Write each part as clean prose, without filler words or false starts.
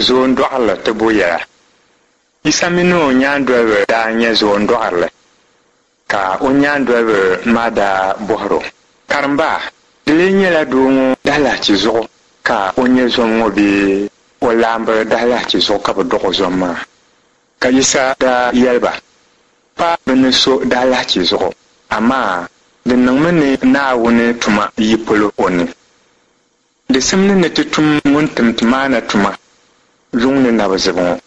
Zoondɔɣirili tibu yɛla. Yisa mini o nyaandoliba daa nya zoondɔɣirili, ka o nyaandoliba maa daa bɔhir o, Karimba, di lee nyɛla doo ŋɔ daalahichi zuɣu ka o nyɛ zom ŋɔ bee o laamba daalahichi zuɣu ka bɛ dɔɣ o zom maa? Ka Yisa daa yɛli ba, Pa bɛ ni so daalahichi zuɣu, amaa di niŋmi ni Naawuni tuma yi polo o ni. Di simdi ni ti tum ŋun tim ti maa na tuma yuŋ ni na bi zibi ŋɔ.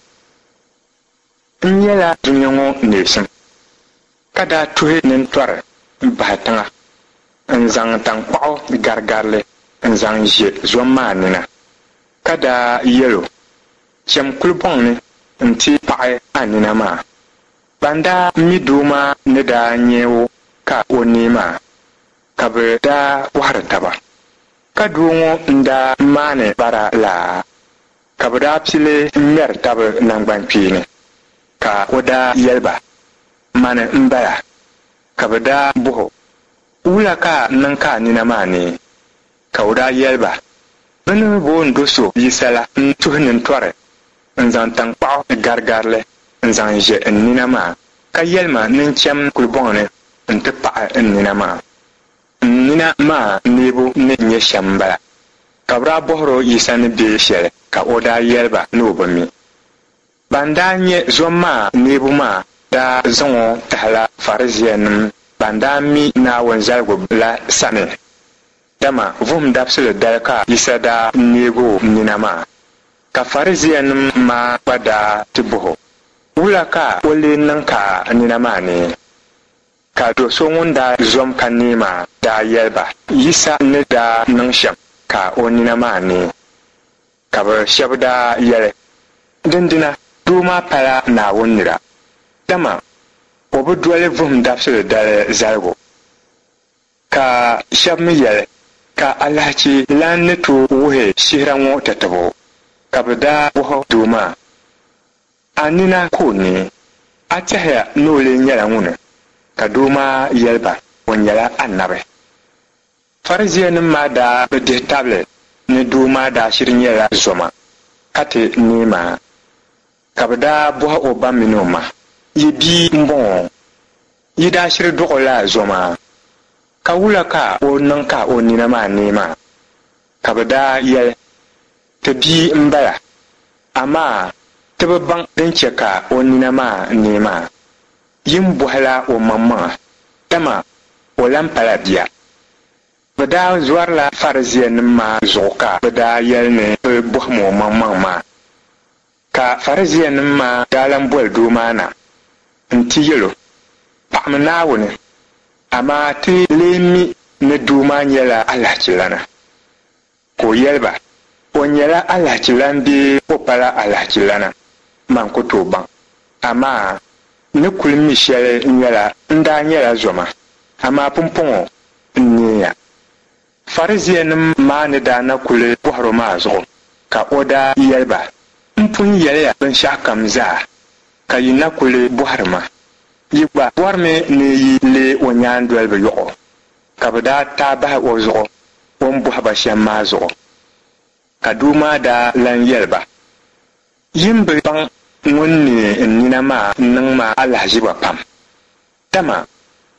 N nyɛla dunia ŋɔ neesim, ka daa tuhi nintɔri bahi tiŋa n-zaŋ taŋkpaɣu garigari li n-zaŋ ʒe zom maa nina, ka daa yɛl o, Cham kulibɔŋ ni nti paɣi a nina maa. Ban daa mi doo maa ni daa nya o ka o neei maa, ka bɛ daa bɔhiri taba, Ka doo ŋɔ n-daa maani bara la? Ka bɛ daa pili ŋmɛri tab naŋgbankpeeni. Ka o daa yɛli ba, Mani m-bala. Ka bɛ daa bɔh o, Wula ka a niŋ ka a nina maa neei? Ka o daa yɛli ba, Bɛ ni booni do so Yisa la n-tuhi nintɔri n-zaŋ taŋkpaɣu garigari li n-zaŋ ʒe n nina maa, ka yɛli ma ni n cham kulibɔŋ ni nti paɣi n nina maa. N nina maa neebu ni nyɛ shɛm m-bala. Ka bɛ daa bɔhir o Yisa ni be shɛli, ka o daa yɛli ba ni o bi mi. Ban daa nyɛ zom maa neebu maa daa zaŋ o tahila Farisiinim ban daa mi Naawuni zaligu la sani, dama vuhim dabisili dali ka Yisa daa neeg o nina maa. Ka Farisiinim maa gba daa ti bɔh o, Wula ka o lee niŋ ka a nina maa neei? Ka do so ŋun daa zom ka neei maa daa yɛli ba Yisa ni daa niŋ shɛm ka o nina maa neei. Ka bɛ shɛba daa yɛli, Dindina doo maa pala Naawuni nira, dama o bi doli vuhim dabisili dali zaligu. Ka shɛba mi yɛli, Ka alahichi lan ni tooi wuhi shihira ŋɔ tatabo? Ka bɛ daa bɔhi doo maa, A nina ka o neei? A tɛhiya ni o lee nyɛla ŋuni? Ka doo maa yɛli ba, O nyɛla anabi. Farisiinim maa daa bi dihi tabili ni doo maa daa shiri nyɛla zoma ka ti neei maa. Ka bɛ daa bɔhi o ba mini o ma, Yi bia m-bɔŋɔ? Yi daa shiri dɔɣ o la zoma? Ka wula ka o niŋ ka o nina maa neei maa? Ka bɛ daa yɛli, Ti bia m-bala, amaa ti bi baŋ din chɛ ka o nina maa neei maa. Yi ni bɔhila o maŋmaŋa, dama o lan pala bia. Bɛ daa zɔrila Farisiinim maa zuɣu ka bɛ daa yɛli ni bɛ bɔhim o maŋmaŋ maa. Ka Farisiinim maa daa lan boli doo maa na nti yɛl o, Paɣimi Naawuni, amaa ti lee mi ni doo maa nyɛla alahachilana. Ka o yɛli ba, O nyɛla alahichilan bee o pala alahichilana, man ku tooi baŋ. Amaa n ni kul mi shɛli nyɛla n daa nyɛla zoma, amaa pumpɔŋɔ n neeya. Farisiinim maa ni daa na kul bɔhir o maa zuɣu, ka o daa yɛli ba, M pun yɛli ya binshɛɣukam zaa, ka yi na kul bɔhiri ma. Yi gba bɔrimi ni yi leeg o nyaandoliba yɔɣɔ? Ka bɛ daa taai bahi o zuɣu o ni bɔhi ba shɛm maa zuɣu. Ka doo maa daa lan yɛli ba, Yi ni bi baŋ ŋun neei n nina maa niŋ ma alahiziba pam, dama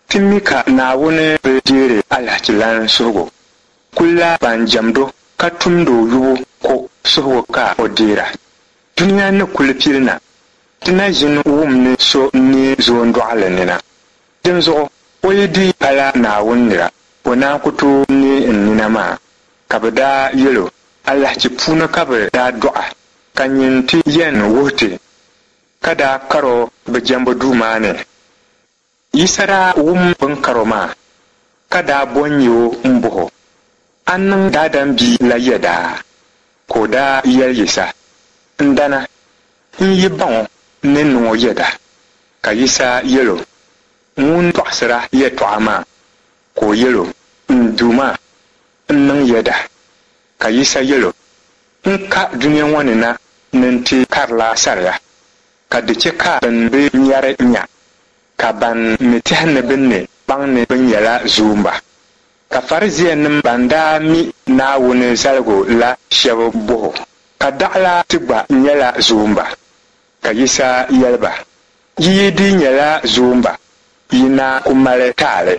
ti mi ka Naawuni bi deeri alahichilan suhigu, kulla ban jɛmd o ka tumd o yubu ko suhigu ka o deera. Dunia ni kul pili na, ti na ʒin wum ni so n-neei zoondɔɣili nina. Dinzuɣu o yi di pala Naawuni nira, o naan ku tooi neei n nina maa. Ka bɛ daa yɛl o, Alahichi puuni ka bɛ daa dɔɣ a, ka nyin ti yɛn wuhi ti, ka daa kar o bɛ jɛmbu duu maa ni. Yisa daa wum bɛ ni kar o maa, ka daa bo n-nya o m-bɔh o, A niŋ Daadam Bia la yɛda? Ka o daa yɛli Yisa, N dana, n yi baŋ o, n ni niŋ o yɛda. Ka Yisa yɛl o, Ŋun tɔɣisira yɛtɔɣa maa. Ka o yɛl o, N Duuma, n niŋ yɛda. Ka Yisa yɛl o, N ka dunia ŋɔ ni na ni n ti karila saria, ka di chɛ ka bɛn bi nyari nya, ka ban mi tɛhi ni bɛ ni baŋ ni bɛ nyɛla zoomba. Ka Farisiinim ban daa mi Naawuni zaligu la shɛba bɔh o. Ka daɣila ti gba nyɛla zoomba? Ka Yisa yɛli ba, Yi yi di nyɛla zoomba, yi na ku mali taali,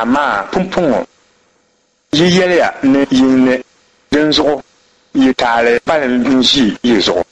amaa pumpɔŋɔ yi yɛliya ni yi ne, dinzuɣu yi taali kpalim n-ʒi yi zuɣu.